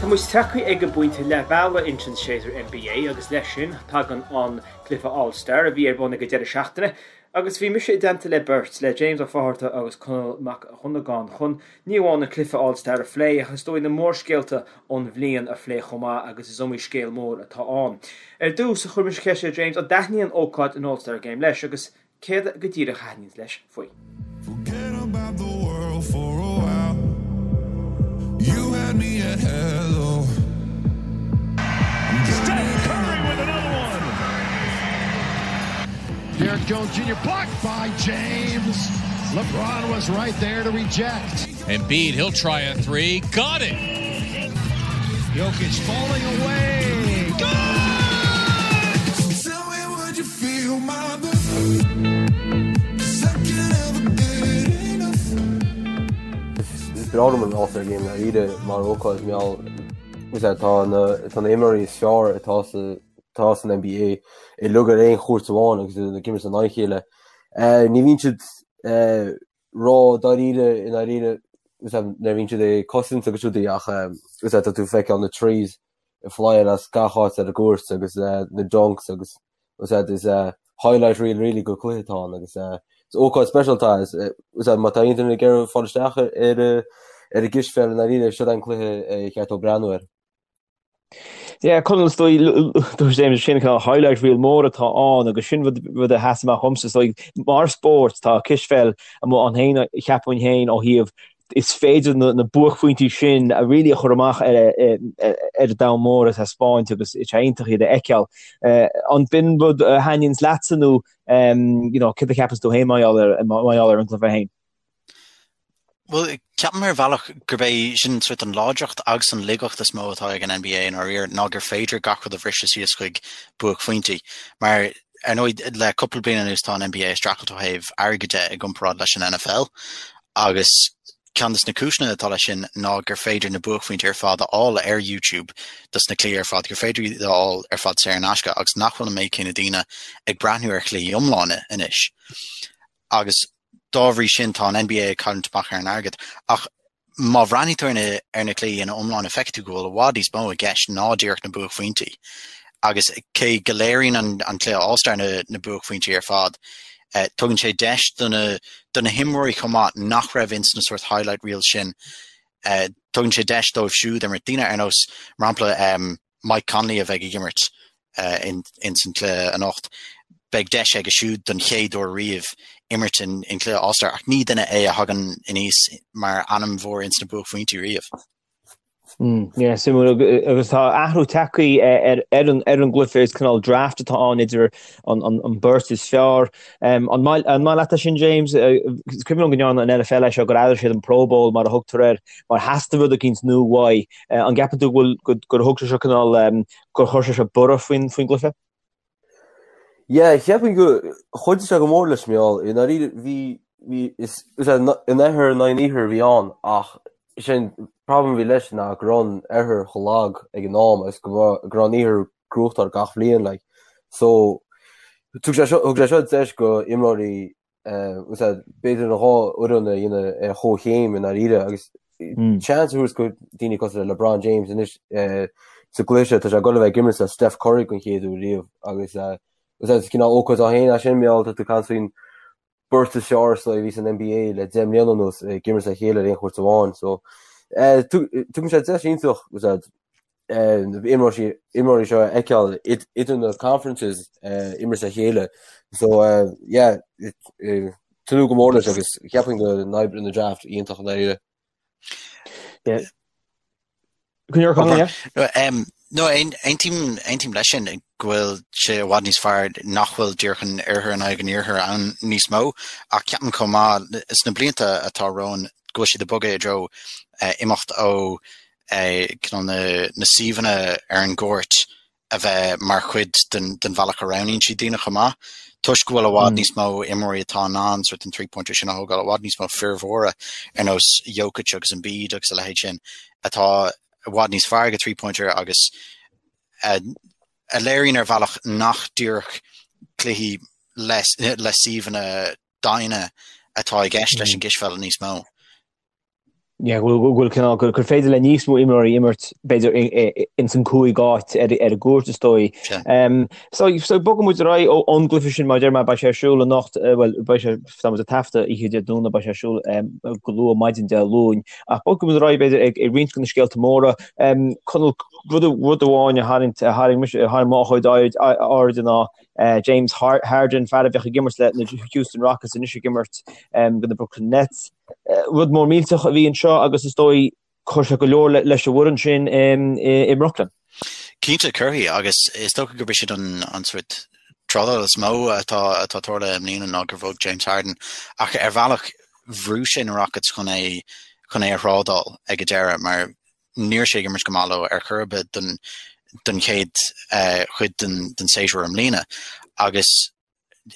Tá muid tagtha ag an bpointe leath bealaigh ins an séasúr NBA agus leis sin tagann an cluiche All Star a bhí ar bun ag an deireadh seachtaine agus bhí mise i dteannta le beirt, le James Ó Fátharta agus Conall Mac Dhonnagáin chun ní amháin an cluiche All Star a phlé ach is dóigh na mórscéalta ón bhliain a phlé chomh maith agus is iomaí scéal mór atá ann. Ar dtús, chuir mise ceist ar James an dtaitníonn ócáid an All Star Game leis agus Céard go díreach a thaitníonns leis faoi? Forget about the world for a while. You had me at hello. Steph Curry with another one. Derrick Jones Jr. blocked by James. LeBron was right there to reject. Embiid, he'll try a three. Got it! Jokic falling away. Good! Tell me would you feel my Is breá liom an All-Star Game dáiríre mar ócáid mar gheall tá na tá na imreoirí is fearr atá sa atá san NBA uilig ar aon chúirt amháin agus iad ag imirt in aghaidh a chéile. Ní bhíonn siad ró-dáiríre i ndáiríre nuair a bhíonn siad ag cosaint agus rudaí ach tá tú ag feiceáil na threes ag flyáil as gach áit ar an gcúirt agus na dunks agus is highlight reel really de chluiche atá ann agus is ócáid speisialta é. Má tá aon duine ag iarraidh fáil isteach ar ar an gcispheil i ndáiríre, seo é an cluiche ar cheart dó breathnú air. Yeah, Conall, is dóigh, dúirt James, sin cineál highlight reel mór atá ann agus sin rud rud a sheas amach dhomsa. Is dóigh, mar spórt, tá cispheil amuigh ann féin, cheapfainn féin, ó thaobh is féidir na buaicphointí sin a really a chur amach ar an domhan mór a thaispeáint agus is iontach iad a fheiceáil. An b'in rud a thaitníonns leatsa nó you know, céard a cheapanns tú féin mar gheall ar, mar gheall ar an gcluiche féin? Bhuel, ceapaim ar bhealach gurb é sin sort an láidreacht agus an laigeacht is mó atá ag an NBA i ndáiríre ná gur féidir gach rud a bhriseadh síos chuig buaicphointí. Mar ar ndóigh le cúpla bliain anuas tá an NBA ag streachailt ó thaobh airgid de i gcomparáid leis an NFL agus ceann de na cúiseanna atá leis sin ná gur féidir na buaicphointí ar fad a fháil ar YouTube dos na cluichí ar fad, gur féidir iad a fháil ar fad saor in aisce agus nach bhfuil an méid céanna daoine ag breathnú ar chluichí iomlána anois. Agus dá bhrí sin tá an NBA ag cailliúint amach ar an airgead. Ach má bhreathnaíonn tú ar na ar na cluichí ina iomláine feicfidh tú go bhfuil i bhfad níos mó i gceist ná díreach na buaicphointí. Agus cé go léiríonn an an cluiche All-Star na na buaicphointí ar fad, eh, tugann sé deis do na do na himreoirí chomh maith nach raibh ins na sort highlight reels sin, eh, tugann sé deis dóibh siúd imirt. Daoine ar nós, mar shampla, em, Mike Conley a bheidh ag imirt ins an cluiche anocht, beidh deis aige siúd don chéad uair riamh imirt in cluiche All-Star ach ní duine é a thagann aníos mar ainm mhór ins na buaicphointí riamh. Yeah, suimiúil agus tá athrú tagtha ar ar an ar an gcluiche is cineál draft atá ann idir an an an beirt is fearr. Um, an maith an maith leat é sin James? Is cuimhin liom go ndearna an NFL é seo gur athraigh siad an Pro Bowl mar a thugtar air mar theastaigh rud eicínt nua uaidh. An gceapann tú go bhfuil gur thug sé seo cineál gur chuir sé seo borradh faoin faoin gcluiche? Yeah, cheapfainn go chuidigh sé go mór leis mar gheall i ndáiríre bhí bhí is is an oirthear in aghaidh an iarthair a bhí ann ach sin problem a bhí leis ná go raibh an oirthear chomh lag ag an am agus go raibh go raibh an iarthar ag gnóthachtáil gach bhliain like. So thug sé seo thug sé seo deis go imreoirí b'fhéidir an dhá fhoireann a dhéanamh ar chomhchéim i ndáiríre agus seans a thabhairt go daoine cosúil le LeBron James anois sa gcluiche seo tá sé ag dul a bheith ag imirt le Steph Curry den chéad uair riamh agus is cineál ócáid é féin é sin mar gheall tá tú ag caint faoin beirt is fearr a bhí san NBA le 10 mbliana anuas ag imirt le chéile ar aon chúirt amháin so tugann sé deis iontach na imreoirí seo a fheiceáil idir na conferences imirt le chéile. So yeah, tnúth go mór leis agus cheapfainn go n-oibreoidh an draft iontach i ndáiríre. No, aontaím aontaím leis sin go bhfuil sé i bhfad níos fearr nach bhfuil díreach an oirthear in aghaidh an iarthair ann níos mó ach ceapaim chomh maith sna blianta atá romhainn go bhfuil siad ag bogadh i dtreo imeacht ó cineál na suíomhanna ar an gcúirt a bheith mar chuid den bhealach a roghnaíonn siad daoine chomh maith, toisc go bhfuil i bhfad níos mó imreoirí atá in ann sort an three-pointer sin a thógáil, i bhfad níos mó fir mhóra ar nós Jokic agus Embiid agus a leithéid sin atá i bhfad níos fearr ag three-pointer agus a léiríonn ar bhealach nach díreach cluichí le suíomhanna doimhne atá i gceist leis an gcispheil níos mó. Yeah, go bhfuil cineál gur féidir le níos mó imreoirí imirt b'fhéidir ins an gcúig áit ar an gcúirt is dóigh. So so bogfaidh muid ar aghaidh ón gcluiche sin mar a deir mé beidh sé ar siúl anocht bhuel beidh sé tá muid ag taifeadadh oíche Dé Domhnaigh beidh sé ar siúl go luath maidin Dé Luain ach bogfaidh muid ar aghaidh b'fhéidir ag ag roinnt de na scéalta móra. Conall rud rud amháin a tharraing a tharraing mise a tharraing mo chuid aird airde ná James Harden fear a bheadh ag imirt le na Houston Rockets anois ag imirt do na Brooklyn Nets. Rud mór millteach a bhí anseo agus is dóigh chuir sé go leor leis an bhfoireann sin i mBrooklyn. Cinnte, cuirfidh, agus is dócha gurb é sin an an sórt trádáil is mó atá atá tarlaithe i mbliana ná gur bhog James Harden ach ar bhealach bhrú sé na Rockets chun é chun é a thrádáil ag an deireadh mar ní raibh sé ag imirt go maith leo ar chor ar bith don don chéad chuid den den séasúr i mbliana agus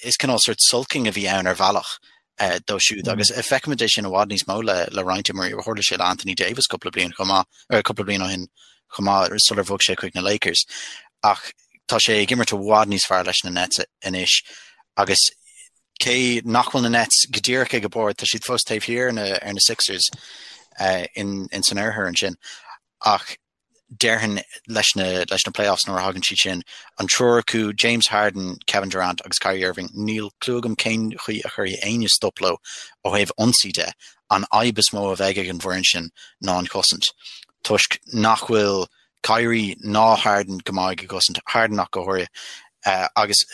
is cineál sórt sulking a bhí ann ar bhealach dó siúd agus feicimid é sin i bhfad níos mó le le roinnt imreoirí. Tharla sé le Anthony Davis cúpla bliain chomh maith, ar cúpla bliain ó shin chomh maith sular bhog sé chuig na Lakers. Ach tá sé ag imirt i bhfad níos fearr leis na Nets anois agus cé nach bhfuil na Nets go díreach ag an bord, tá siad fós taobh thiar ar na, ar na Sixers uh, in, in san oirthear ansin. Ach déarfainn leis na leis na playoffs nuair a thagann siad sin, an triúr acu, James Harden, Kevin Durant agus Kyrie Irving, níl clue agam cén chaoi a chuirfidh éinne stop leo ó thaobh ionsaí de. An fhadhb is mó a bheidh ag an bhfoireann sin ná an chosaint, toisc nach bhfuil Kyrie ná Harden go maith ag an gcosaint, Harden ach go háirithe, agus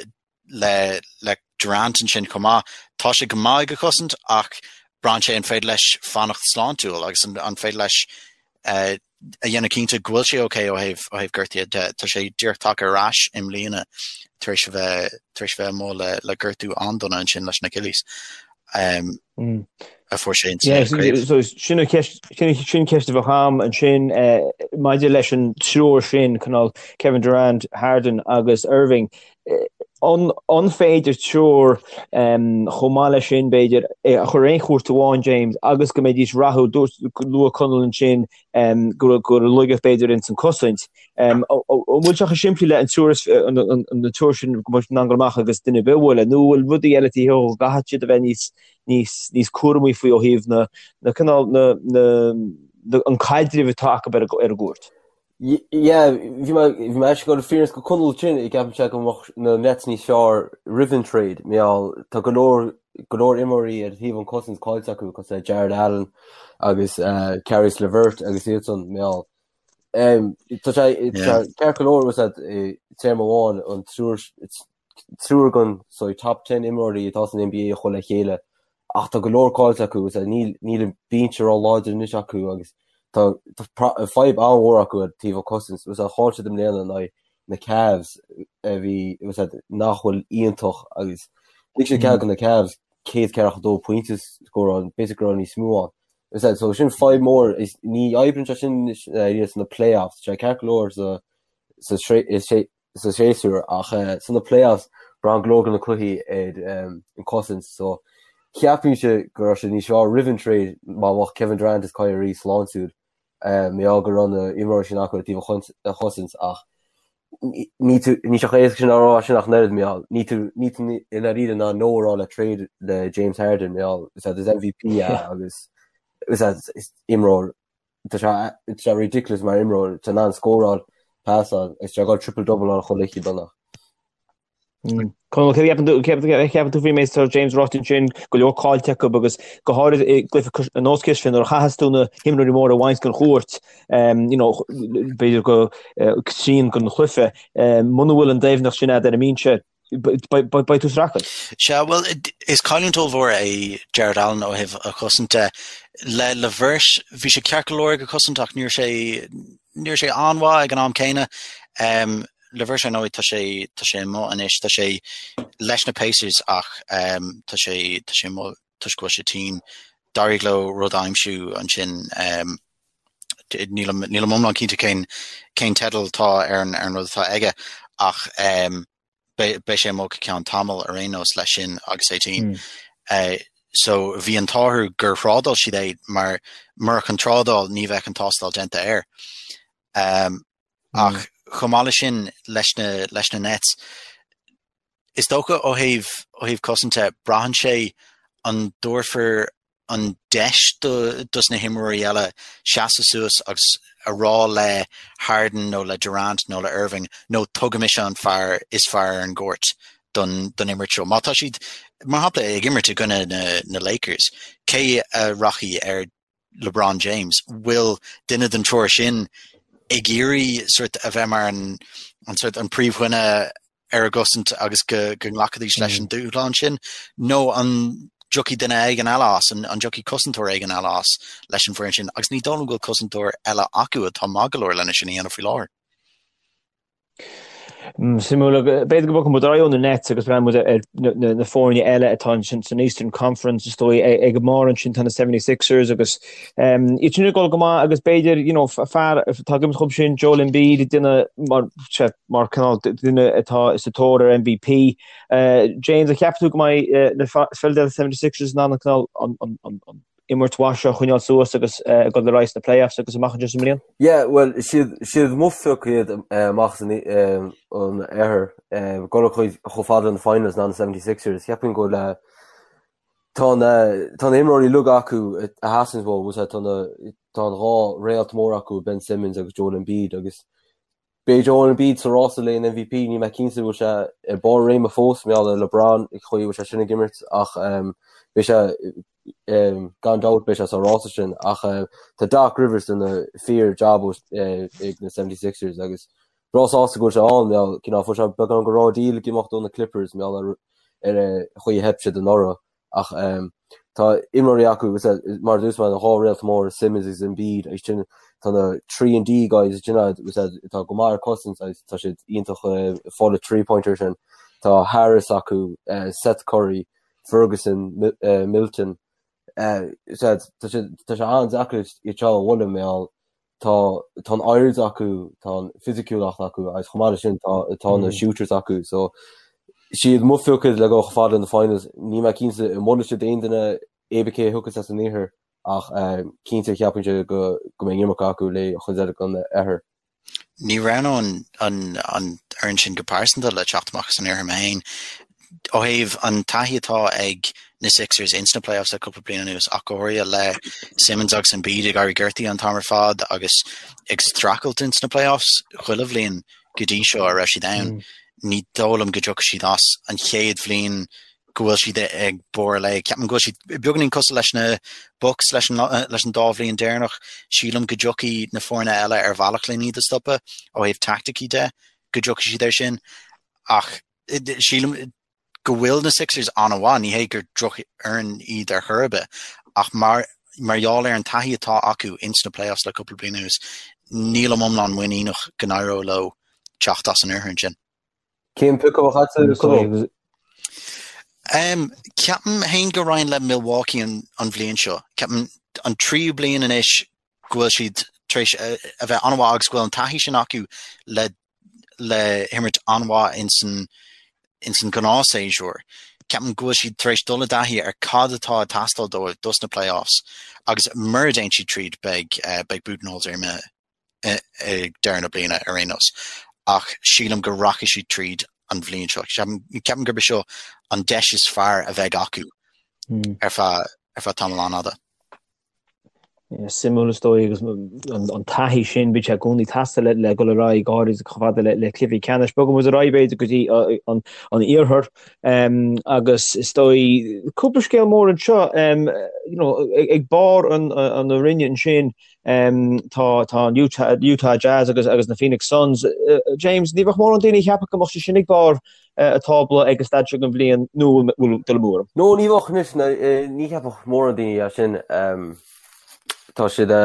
le le Durant ansin chomh maith. Tá sé go maith ag an chosaint ach braitheann sé an féidir leis fanacht sláintiúil agus an, an féidir leis uh, a dhéanamh cinnte go bhfuil sé ok ó thaobh ó thaobh gortaithe de. Tá sé díreach tagtha ar ais i mbliana tar éis a bheith tar éis a bheith amuigh le, le gortú an-dona ansin leis an Achilles. Um, mm. a fuair sé so sin an cheist sin ceist a bheadh agam ansin eh, maidir leis an triúr sin cineál Kevin Durant, Harden agus Irving. Eh, an, an féidir triúr um, chomh maith leis sin b'fhéidir eh, a chur ar aon chúirt amháin James agus go mbeidís rathúil dúirt luaigh Conall ansin um, go go raibh laigeacht b'fhéidir ins an cosaint. Um, an bhfuil sé chomh simplí le an triúr an, an, an triúr sin go mbeidh siad in ann dul amach agus duine ar bith a bhualadh nó bhfuil rudaí eile taobh thiar go gcaithfidh siad a bheith níos níos níos cúramaí faoi ó thaobh na na cineál na na na an caidreamh atá acu ar ar an gcúirt. Yeah, bhí mé bhí mé ag dul fírinne go Conall sin ag ceapann sé go mbeadh na Nets níos fearr roimh an trade mar gheall tá go leor go leor imreoirí ar thaobh an cosaint caillte acu cosúil le Jarrett Allen agus uh, Caris LeVert agus iad san mar gheall um, tá sé yeah. ceart go leor was that téarma amháin an triúr triúr den so top 10 imreoirí atá san NBA a chur le chéile ach tá go leor caillte acu is níl níl an binse ró-láidir anois acu agus tá fadhb an-mhór acu ar taobh an cosaint was chaill siad i mbliana in aghaidh na Cavs a bhí was nach bhfuil iontach agus lig siad cead do na Cavs 142 pointe scóráil b'fhéidir go raibh níos mó ann. Was so sin fadhb mór is ní oibríonn sé sin anois sna playoffs sé ceart go leor sa sa sa séasúr ach sna playoffs braitheann go leor de na cluichí ar an cosaint so cheapfainnse go raibh sé níos fearr roimh an trade má bheadh Kevin Durant is Kyrie sláintiúil mar gheall go raibh na imreoirí sin acu ar taobh an chosaint ach ní tú ní sé chomh éasca sin a rá sin ach an oiread mar gheall ní tú ní tú i ndáiríre in ann no a rá le trade le James Harden mar gheall is is MVP é agus is is imreoir Tá sé tá sé ridiculous mar imreoir, tá in ann scóráil, pasáil, agus tá sé ag dul triple double ann chuile oíche Domhnach. Conall, céard a cheapann tú, céard a cheapann tú faoin méid atá James ráite ansin, go leor caillte acu agus go háirid i gcluiche ar nós sin nuair a chaitheas tú na himreoirí móra a bhaint den chúirt, you know, b'fhéidir go trian den chluiche, muna bhfuil an doimhneacht sin agat ar an mbinse, beidh tú sa racal. Sea, bhuel, is cailliúint ollmhór é Jarrett Allen ó thaobh a chosaint de. Le LeVert, bhí sé ceart go leor ag an chosaint ach ní raibh sé, ní raibh sé an-mhaith ag an am céanna. Um, LeVert ar ndóigh tá sé, tá sé amuigh anois, tá sé leis na Pacers ach um, tá sé, tá sé amuigh toisc go bhfuil sé tinn. D'éirigh leo rud a aimsiú ansin um, nílim, nílim iomlán cinnte cén, cén teideal atá ar an, ar an rud atá aige ach um, beidh sé amuigh go ceann tamaill ar aon nós leis sin agus é tinn. Mm. So bhí an t-ádh orthu gur thrádáil siad é mar murach an trádáil ní bheadh an tástáil déanta air. Um, ach mm. chomh maith leis sin leis na, leis na Nets, is dócha ó thaobh ó thaobh cosaint de braitheann sé an dtabharfar. an deis dos na himreoirí eile seasamh suas agus a rá le Harden nó le Durant nó le Irving nó toghfaidh mise an fear is fearr ar an gcúirt don don imirt seo. Má tá siad, mar shampla, ag imirt i gcoinne na na Lakers, cé a rachaidh ar LeBron James? Bhfuil duine den triúr sin ag iarraidh sort a bheith mar an an sort an príomhdhuine ar a gcosaint agus go nglacfaidís leis an dúshlán sin, nó an dtiocfaidh duine éigin eile as, an dtiocfaidh cosantóir éigin eile as leis an bhfoireann sin, agus ní dóigh liom go bhfuil cosantóir eile acu atá maith go leor lena sin a dhéanamh faoi láthair. Suimiúil, b'fhéidir go mbogfaidh muid ar aghaidh ó na Nets agus breathnóidh muid ar na foirne eile atá ansin san Eastern Conference is dóigh ag an mbarr ansin tá na 76ers agus iad sin ag dul go maith agus b'fhéidir you know fear atá ag imirt dhóibh sin Joel Embiid ag déanamh mar mar cineál duine atá sa tóir ar MVP. James, an gceapann tú go mbeidh na Philadelphia 76ers in ann an cineál an imirt mhaith seo a choinneáil suas agus ag dul ar aghaidh sna playoffs agus amach anseo sa mbliain? Yeah, bhuel, is iad is iad mo phioc iad amach as an oirthear. Dul chomh fada na finals ná na 76ers. Cheapfainn go bhfuil tá na tá na imreoirí uilig acu a theastaíonn uathu, tá na tá an dhá réalt mór acu, Ben Simmons agus Joel Embiid agus Beidh Joel Embiid sa rása le an MVP, níl mé cinnte bhfuil sé i barr réime fós mar gheall ar LeBron an chaoi a bhfuil sé sin ag imirt ach beidh sé gan dabht beidh sé sa rása sin ach tá Doc Rivers ag déanamh fíor job ag na 76ers agus breá sásta go bhfuil sé ann mar gheall cineál fuair sé beagán go raw deal ag imeacht ó na Clippers mar gheall ar ar an chaoi a theip siad anuraidh. Ach tá imreoirí acu, mar a dúirt mé, na dhá réalt móra, Simmons agus Embiid, agus sin tá na 3 and D guys sin atá go maith ar cosaint agus tá siad iontach ag fáil 3 pointer sin. Tá Harris acu, Seth Curry, Ferguson, Milton. Tá sé an-deacair iad seo a bhualadh mar gheall tá tá an airde acu, tá an fisiciúlacht acu agus chomh maith leis sin tá tá na shooters acu so siad mo phioc le dul chomh fada na finals. Níl mé cinnte an mbuailfidh siad aon duine cibé cé a thiocfas as an iarthar ach cinnte cheapfainnse go go mbeidh an iomarca acu le chuid eile den oirthear. Ní roghnóinn an an fhoireann sin go pearsanta le teacht amach as an iarthar mé féin. Ó thaobh an taithí atá ag na Sixers ins na playoffs le cúpla bliain anuas, ach go háirithe le Simmons agus Embiid ag éirí gortaithe an t-am ar fad agus ag streachailt ins na playoffs chuile bhliain go dtí seo a raibh siad ann, ní dóigh liom go dtiocfaidh siad as an chéad bhliain go bhfuil siad ag barr a léig. Ceapaim go bhfuil siad beagáinín cosúil leis na Bucks leis an leis an dá bhliain deireanach. Sílim go dtiocfaidh na foirne eile ar bhealach len iad a stopadh ó thaobh taicticí de, go dtiocfaidh siad air sin. Ach sílim go bhfuil na Sixers an-mhaith, ní hé gur drochfhoireann iad ar chor ar bith, ach mar mar gheall ar an taithí atá acu ins na playoffs le cúpla bliain anuas, nílim iomlán muiníneach go n-éireoidh leo teacht as an oirthear ansin. Cén pioc a bheadh agat, Conall? Ceapaim féin go raghainn le Milwaukee an an bhliain seo. Ceapaim an tríú bliain anois go bhfuil siad tar éis a bheith an-mhaith agus go bhfuil an taithí sin acu le le himirt an-mhaith ins an ins an gnáthshéasúr. Ceapaim go bhfuil siad tar éis dul i dtaithí ar cad atá ag teastáil dóibh dos na playoffs agus mura dtéann siad tríd beidh beidh Budenholzer imithe ag deireadh na bliana ar aon nós. Ach sílim go rachaidh siad tríd an bhliain seo. Ceapaim gurb é seo an deis is fearr a bheidh acu ar feadh ar feadh tamall an-fhada. Suimiúil is dóigh agus an taithí sin bíonn sé i gcónaí ag teastáil le dul ar aghaidh go háirid chomh fada le cluichí ceannais. Bogfaidh muid ar aghaidh b'fhéidir go dtí an iarthar agus is dóigh cúpla scéal mór anseo ag barr an roinne ansin tá tá an Utah Jazz agus agus na Phoenix Suns. James, ní bheadh mórán daoine ag ceapadh go mbeadh siad sin ag barr an tábla ag an staid seo den bhliain nó an bhfuil dul amú orm? No, ní bheadh anois, ní cheapfadh mórán daoine é sin. Tá siad dhá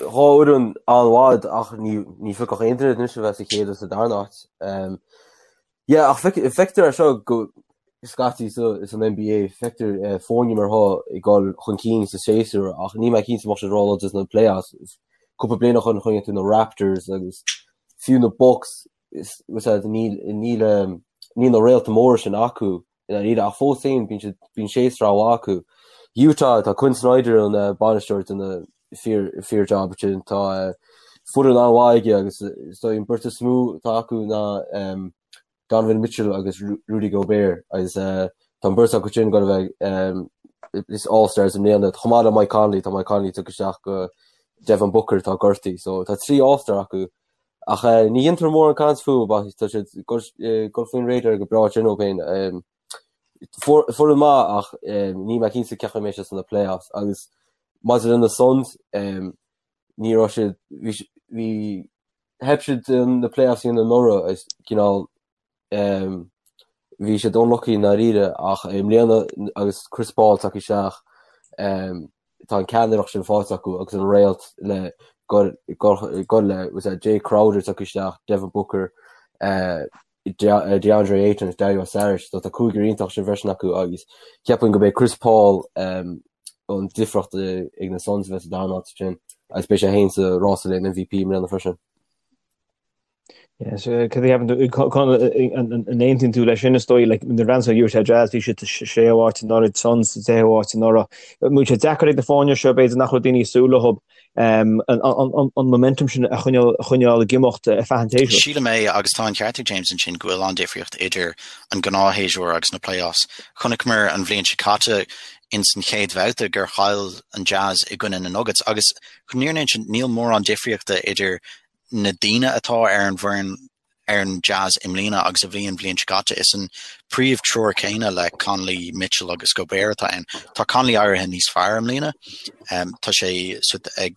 fhoireann an-mhaith ach ní phiocfadh aon duine anois a bheith sa chéad agus sa darna háit. Yeah, ach feictear é seo go scaití san NBA, feictear foirne mar seo ag dul chun cinn sa séasúr ach níl mé cinnte an mbeadh siad róláidir sna playoffs. Cúpla bliain ó shin chonaic tú na Raptors agus fiú na Bucks níl níl na réalta móra sin acu i ndáiríre ach fós féin bíonn siad bíonn séasúr an-mhaith acu. Utah tá Quin Snyder an bainisteoir ag déanamh fíor fíor job ansin tá foireann an-mhaith aige agus is dóigh an beirt is mó atá acu ná Donovan Mitchell agus Rudy Gobert agus tá an beirt acu sin ag dul a bheith. is All-Stars i mbliana, chomh maith le Mike Conley, tá Mike Conley tugtha isteach go Devin Booker atá gortaithe, so tá 3 All-Star acu. Ach ní dhéantar mórán caint fúthu, but tá siad ag dul faoin radar go breá sin dóibh féin. Foireann maith ach níl mé cinnte cén chaoi a mbeidh siad sna playoffs agus maidir le na Suns ní raibh siad bhí theip siad na playoffs a dhéanamh anuraidh is cineál bhí siad unlucky i ndáiríre ach i mbliana agus Chris Paul tagtha isteach tá an ceannaireacht sin faighte acu agus an réalt le gul le Jae Crowder tagtha isteach, Devin Booker, DeAndre Ayton agus Dario Saric, so tá cúigear iontach sin freisin acu agus ceapaim go mbeidh Chris Paul an difríocht ag na Suns a bheith sa darna háit sin agus beidh sé féin sa rása le MVP i mbliana freisin. Yes, cad a cheapann tú, Conall, an aontaíonn tú leis sin is dóigh, like, na Rams Utah Jazz, bhí siad sa séú háit anuraidh, Suns sa deichiú háit anuraidh. An bhfuil sé deacair ag na foirne seo, b'fhéidir nach raibh daoine ag súil leo, an momentum sin a choinneáil ag imeacht ar feadh an tséasúir. Sílim é, agus tá an ceart ag James ansin go bhfuil an-difríocht idir an gnáthshéasúr agus na playoffs. Chonaiceamar an bhliain seo caite ins an chéad bhabhta gur chaill an Jazz i gcoinne na Nuggets agus chun an fhírinne a insint níl mórán difríochta idir na daoine atá ar an bhfoireann ar an Jazz i mbliana agus a bhí an bhliain seo caite. Is an príomh-triúr céanna le Conley, Mitchell agus Gobert atá ann. Tá Conley éirithe níos fearr i mbliana. Tá sé ag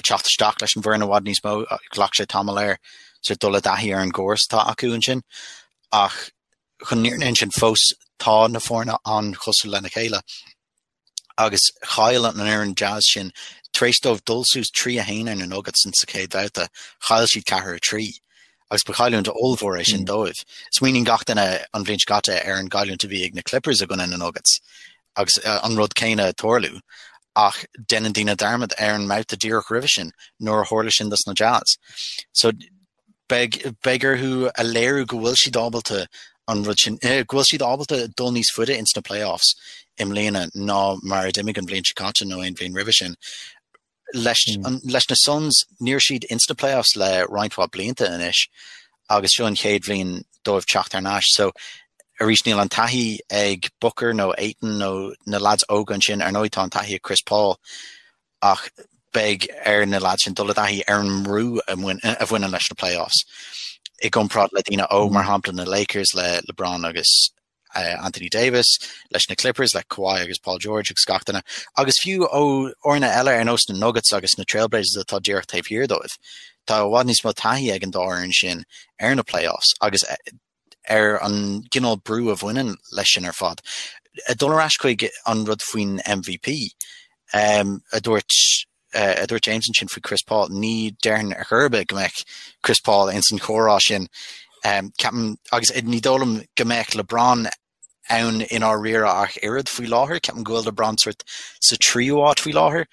teacht isteach leis an bhfoireann i bhfad níos mó. Ghlac sé tamall air sort dul i dtaithí ar an gcóras atá acu ansin. Ach chun an fhírinne a insint fós tá na foirne an-chosúil lena chéile. agus chaill an fhoireann Jazz sin, tar éis dóibh dul suas 3 1 ar na Nuggets in sa chéad bhabhta, chaill siad 4 3 agus ba chailliúint ollmhór é sin dóibh. Smaoiníonn gach duine an bhliain seo caite ar an gcailliúint a bhí ag na Clippers i gcoinne na Nuggets agus an rud céanna ag tarlú ach déanann daoine dearmad ar an mbabhta díreach roimhe sin nuair a tharla sin dos na Jazz. So Beidh, beidh orthu a léiriú go bhfuil siad ábalta an rud sin, go bhfuil siad ábalta dul níos faide ins na playoffs i mbliana ná mar a d'imigh an bhliain seo caite nó aon bhliain roimhe sin. Leis, an, leis na Suns, ní raibh siad ins na playoffs le roinnt mhaith blianta anois agus seo an chéad bhliain dóibh teacht thar n-ais. So, arís níl an taithí ag Booker nó Ayton nó na lads óga ansin, ar ndóigh tá an taithí ag Chris Paul ach beidh ar na lads sin dul i dtaithí ar an mbrú a bhaineann leis na playoffs i gcomparáid le daoine óg, mar shampla na Lakers le LeBron agus Anthony Davis, leis na Clippers le Kawhi agus Paul George agus gach duine, agus fiú ó fhoirne eile ar nós na Nuggets agus na Trailblazers atá díreach taobh thiar dóibh. Tá i bhfad níos mó taithí ag an dá fhoireann sin ar na playoffs agus ar an gcineál brú a bhaineann leis sin ar fad. Ag dul ar ais chuig an rud faoin MVP, a dúirt a dúirt James ansin faoi Chris Paul, ní déarfainn ar chor ar bith go mbeadh Chris Paul ins an chomhrá sin. Ceapaim, agus ní dóigh liom go mbeadh LeBron ann i ndáiríre ach oiread faoi láthair. Ceapaim go bhfuil LeBron sort sa tríú háit faoi láthair.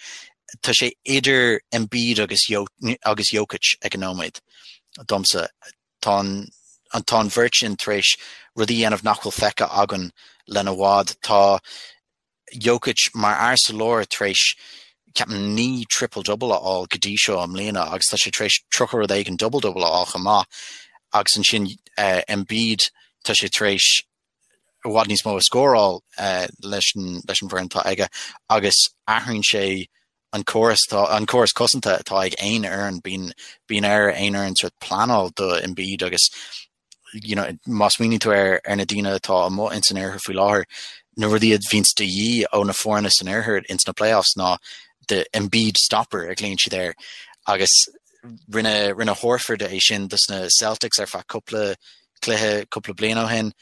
Tá sé idir Embiid agus agus Jokic ag an nóiméad domsa. Tá an tá an bheirt sin tar éis rudaí a dhéanamh nach bhfuil feicthe againn lena bhfad. Tá Jokic mar fhear sa lár tar éis ceapaim 9 triple double a fháil go dtí seo i mbliana agus tá sé tar éis 30 rud éigin double double a fháil chomh maith agus ansin Embiid tá sé tar éis i bhfad níos mó a scóráil leis an leis an bhfoireann atá aige agus athraíonn sé an córas atá an córas cosanta atá ag aon fhoireann bíonn bíonn ar aon fhoireann sort pleanáil do Embiid agus you know má smaoiníonn tú ar ar na daoine atá amuigh ins an oirthear faoi láthair na rudaí a bhíonns de dhíth ó na foirne san oirthear ins na playoffs ná the Embiid stopper a ghlaonn siad air agus rinne rinne Horford é sin dos na Celtics ar feadh cúpla cluiche cúpla bliain ó shin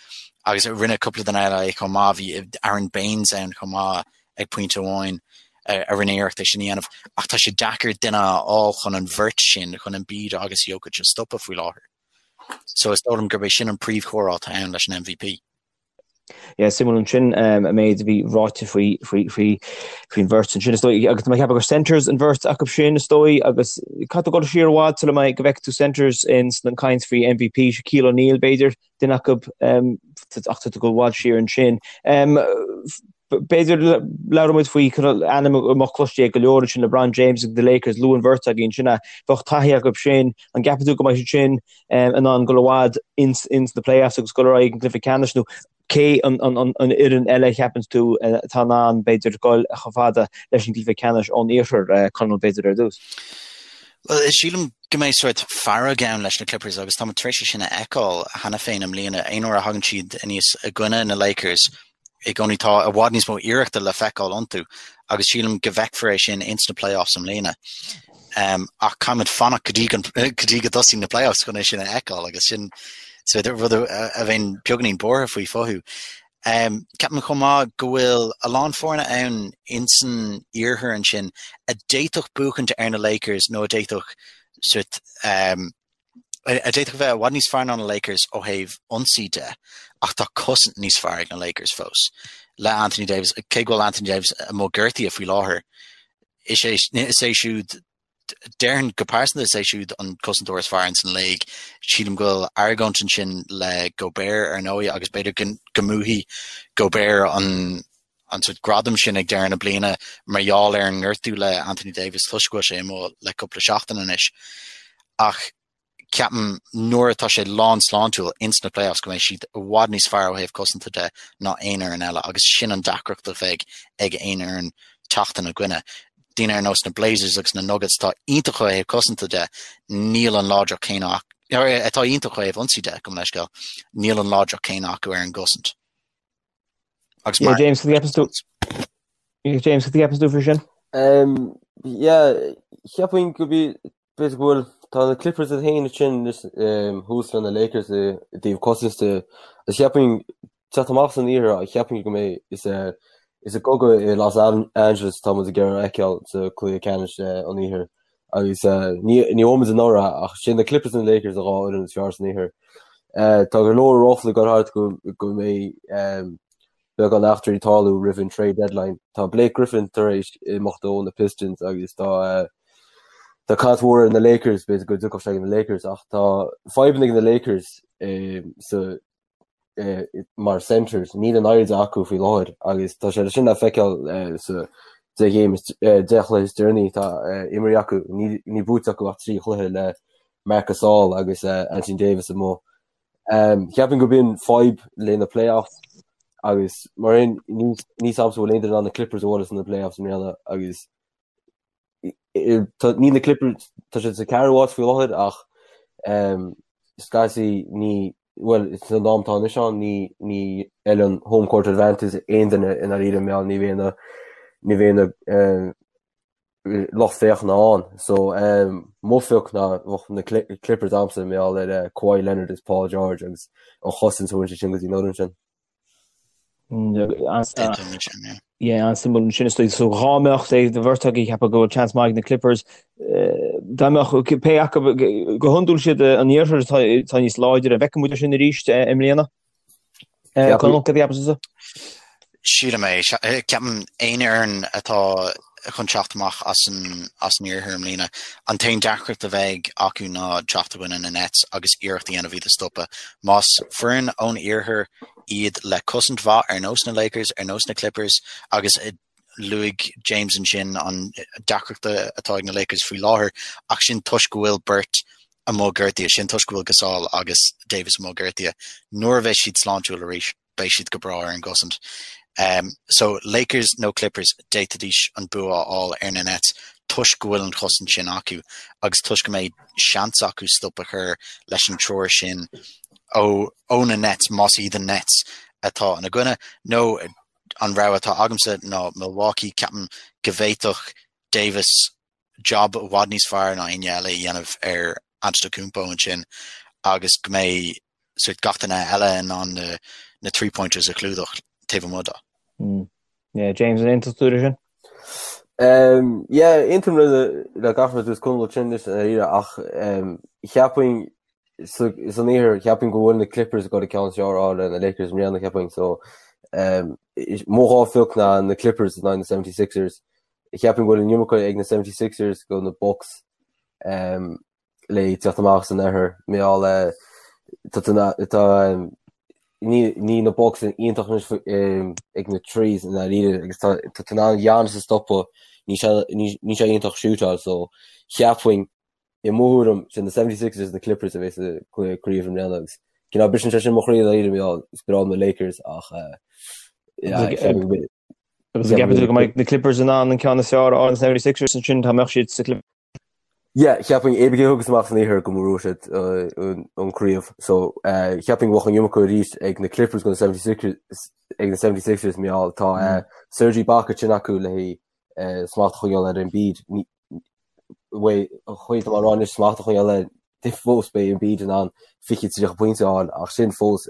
agus rinne cúpla duine eile é chomh maith bhí Aron Baynes ann chomh maith ag pointe amháin a rinne iarracht é sin a dhéanamh ach tá sé deacair duine a fháil chun an bheirt sin, chun Embiid agus Jokic a stopadh faoi láthair. So is dóigh liom gurb é sin an príomhchomhrá atá ann leis an MVP. Yeah, suimiúil ansin an méid a bhí ráite faoi faoi faoi faoin bheirt ansin is dóigh agus tá mé ag ceapadh gur centers an bheirt acu sin is dóigh agus caithfidh tú dul siar i bhfad sula mbeidh go bhfeicfidh tú centers in san caint faoi MVP Shaquille O'Neal b'fhéidir duine acu ach tá tú ag dul i bhfad siar ansin. B'fhéidir labhróidh muid faoi ainm a mbeadh cloiste ag go leor ansin LeBron James agus the Lakers luaigh an bheirt againn sin é. Bheadh taithí acu sin, an gceapann tú go mbeidh siad sin in ann dul i bhfad ins ins na playoffs agus dul ar aghaidh an cluiche ceannais nó? Cé an fhoireann eile a cheapann tú atá in ann, b'fhéidir, dul chomh fada leis an gcluiche ceannais ón iarthar, Conall, b'fhéidir, ar dtús? Bhuel, sílim go mbeidh sórt fearg ann leis na Clippers agus táimid tar éis é sin a fheiceáil cheana féin i mbliana. Aon uair a thagann siad aníos i gcoinne na Lakers, i gcónaí tá i bhfad níos mó iarrachta le feiceáil iontu agus sílim go bhfeicfear é sin ins na playoffs i mbliana. Um, ach caithfimid fanacht go dtí go dtí go dtosaíonn na playoffs chun é sin a fheiceáil agus sin rud a bheinn beagáinín buartha faoi fúthu. Um, ceapaim chomh maith go bhfuil a lán foirne ann insan iarthar ansin a d'fhéadfadh buachaint ar na Lakers nó a d'fhéadfadh sort, um, a d'fhéadfadh a bheith i bhfad níos fearr ná na Lakers ó thaobh ionsaí de, ach tá cosaint níos fearr ag na Lakers fós. Le Anthony Davis, cé go bhfuil Anthony Davis amuigh gortaithe faoi láthair, is é, is é siúd, déarfainn go pearsanta is é siúd an cosantóir is fearr ins an léig. Sílim go bhfuil argóint ansin le Gobert ar ndóigh agus b'fhéidir go, go mbuafaidh Gobert an an sort gradam sin ag deireadh na bliana mar gheall ar an ngortú le Anthony Davis toisc go bhfuil sé amuigh le cúpla seachtain anois. Ach ceapaim nuair atá sé lán sláintiúil ins na playoffs go mbeidh siad i bhfad níos fearr ó thaobh cosanta de ná aon fhoireann eile agus sin an deacracht a bheidh ag aon fhoireann teacht ina gcoinne. Daoine ar nós na Blazers agus na Nuggets atá iontach ó thaobh cosanta de, níl an láidreacht céanna atá iontach ó thaobh ionsaí de, gabh mo leithscéal, níl an láidreacht céanna acu ar an gcosaint. Agus mar James, cad a cheapann tú? James, cad a cheapann tú faoi sin? Um, yeah, cheapfainn go bí b'fhéidir go bhfuil tá na Clippers iad féin ansin um, thuas le na Lakers i i dtaobh cosaint de. Agus cheapfainn teacht amach san iarthar cheapfainn go mbeidh is eh, is i gcogadh i Los Angeles atá muid ag iarraidh a fheiceáil sa cluiche ceannais eh, an iarthair. Agus eh, ní ní bhfuair muid anuraidh ach sin na Clippers and Lakers an dhá fhoireann is fearr san iarthar. Eh, tá go leor ráflaí ag dul thart go go mbeidh um, beagán eachtraí ag tarlú roimh an trade deadline. Tá Blake Griffin tar éis imeacht ó na Pistons agus tá eh, tá caint mhór ar na Lakers, b'fhéidir go dtiocfadh sé ag na Lakers ach tá fadhbanna ag na Lakers eh, sa mar centres, níl an oiread acu faoi láthair agus tá sé sin le feiceáil sa 10 game, 10 chluiche is deireanaí atá imeartha acu, níl buaite acu ach 3 chluiche le Marc Gasol agus Anthony Davis amuigh. Cheapfainn gurb in fadhb le na playoffs agus mar aon níl a fhios a'msa bhfuil aon duine in ann na Clippers a bhualadh sna playoffs i mbliana agus Níl na Clippers, tá siad sa ceathrú háit faoi láthair ach scaití ní, bhuel san am atá anois ann ní ní fheileann home court advantage aon duine i ndáiríre mar ní bheidh na ní bheidh na lucht féachana ann. So mo phioc ná bheadh na Clippers a'msa mar gheall ar Kawhi Leonard is Paul George agus an chosaint a thabharann sé sin go dtí an fhoireann sin. Yeah, an-suimiúil ansin is dóigh. So dhá mbeadh sé de bheirt agaibh ag ceapadh go bhfuil seans maith ag na Clippers, dá mbeadh pé acu go hiondúil siad an iarthar atá atá níos láidre, an bhfeicfidh muid é sin arís i mbliana? Conall, cad a cheapas tusa? Sílim é. Ceapaim aon fhoireann atá chun teacht amach as an as an iarthar i mbliana, an t-aon deacracht a bheidh acu ná teacht i gcoinne na Nets agus iarracht a dhéanamh iad a stopadh. Más foireann ón iarthar iad le cosaint mhaith ar nós na Lakers, ar nós na Clippers agus luaigh James ansin an deacracht atá ag na Lakers faoi láthair ach sin toisc go bhfuil beirt amuigh gortaithe, sin toisc go bhfuil Gasol agus Davis amuigh gortaithe. Nuair a bheidh siad sláintiúil arís, beidh siad go breá ar an gcosaint. Um, so Lakers nó Clippers d'fhéadfaidís an bua a fháil ar na Nets toisc go bhfuil an chosaint sin acu agus toisc go mbeidh seans acu stop a chur leis an triúr sin ó, ó na Nets más iad an Nets atá ina gcoinne nó an rogha atá agamsa ná Milwaukee ceapaim go bhféadfadh Davis job i bhfad níos fearr ná éinne eile a dhéanamh ar Antetokounmpo ansin agus go mbeidh sort gach duine eile in ann na, na three-pointers a chlúdach taobh amuigh dó. Mm. Yeah, James, an aontaíonn tú leis sin? Um, yeah, aontaím le, le gach rud a dúirt Conall ansin anois i ndáiríre ach um, cheapfainn san iarthar cheapfainn go bhfuil na Clippers ag dul an ceann is fearr a fháil ar na Lakers i mbliana cheapfainn so um, mo dhá phioc ná na Clippers in aghaidh na 76ers Cheapfainn go bhfuil an iomarca ag na 76ers go na Bucks um, le teacht amach san oirthear mar gheall eh, tá tá ní ní na Bucks iontach anois ag na threes i ndáiríre agus tá tá tú in ann Giannis a stopadh níl sé níl sé iontach shootáil so cheapfainn i mo thuairim sin na 76ers na Clippers a bheidh sa craobh i mbliana agus. Cineál briseann sé sin mo chroí dáiríre mar gheall is breá liom na Lakers ach yeah, ceapaim go mbeidh Agus an gceapann tú go mbeidh na Clippers in ann an ceann is fearr a fháil ar na 76ers ansin dá mbeadh siad sa Clippers? Yeah, cheapfainn cibé cé a thiocfas amach san iarthar go mbuafaidh siad an craobh. So cheapfainn go mbeadh an iomarca arís ag na Clippers go na 76ers ag na 76ers mar gheall tá Serge Ibaka sin acu le haghaidh smacht a choinneáil ar Embiid. An chaoi atá mé ag rá anois smacht a choinneáil air fós beidh Embiid in ann 20 30 pointe a fháil ach sin fós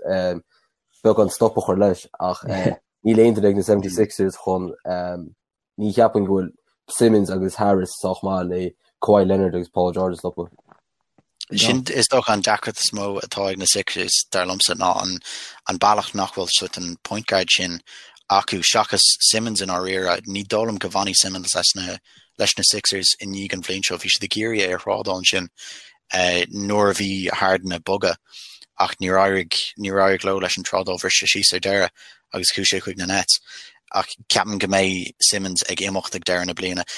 beagán stop a chur leis ach níl aon duine ag na 76ers chun Ní cheapaim go bhfuil Simmons agus Harris sách maith le Kawhi Leonard agus Paul George a stopadh. Sin is dócha an deacracht is mó atá ag na Sixers, dar liomsa, ná an an bealach nach bhfuil sort an point guard sin acu seachas Simmons i ndáiríre. Ní dóigh liom go bhfanfaidh Simmons leis na leis na Sixers i ndiaidh an bhliain seo. Bhí siad ag iarraidh é a thrádáil ansin nuair a bhí Harden ag bogadh ach níor éirigh níor éirigh leo leis an trádáil bhris sé síos ar deireadh agus chuaigh sé chuig na Nets. Ach ceapaim go mbeidh Simmons ag imeacht ag deireadh na bliana.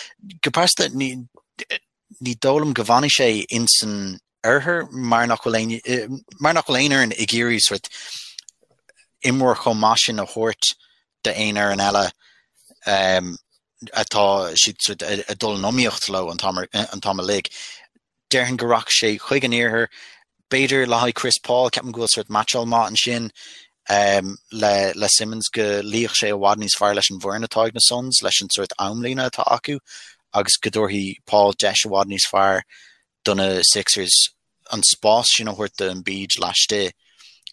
Go pearsanta, ní ní dóigh liom go bhfanfaidh sé insan oirthear mar nach bhfuil aon mar nach bhfuil aon fhoireann ag iarraidh sort imreoir chomh maith sin a thabhairt d'aon fhoireann eile um, atá siad sort ag dul in iomaíocht leo an t-am an t-am uilig. Déarfainn go rachadh sé chuig an iarthar, b'fhéidir le haghaidh Chris Paul, ceapaim go bhfuil sort meaitseáil maith ansin le le Simmons go luífeadh sé i bhfad níos fearr leis an bhfoireann atá ag na Suns, leis an sort amlíne atá acu agus go dtabharfaidh Paul deis i bhfad níos fearr do na Sixers an spás sin a thabhairt do Embiid laistigh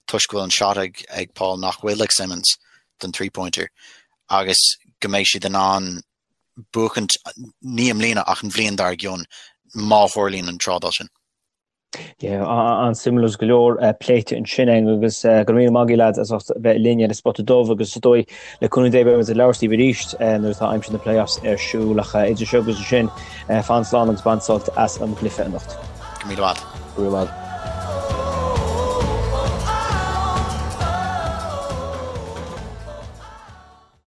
toisc go bhfuil an shot ag ag Paul nach bhfuil ag Simmons don three-pointer agus go mbeidh siad in ann buachaint ní i mbliana ach an bhliain dár gcionn má tharlaíonn an trádáil sin. Yeah, an-suimiúil agus go leor pléite ansin againn agus go raibh míle maith agaibh lads as ucht bheith linn ar an Spota Dubh agus is dóigh le cúnamh Dé beidh muid ag labhairt libh arís nuair atá aimsir na playoffs ar siúl ach idir seo agus ansin fan slán agus bain sult as an gcluiche anocht. Go raibh míle maith. Go raibh maith.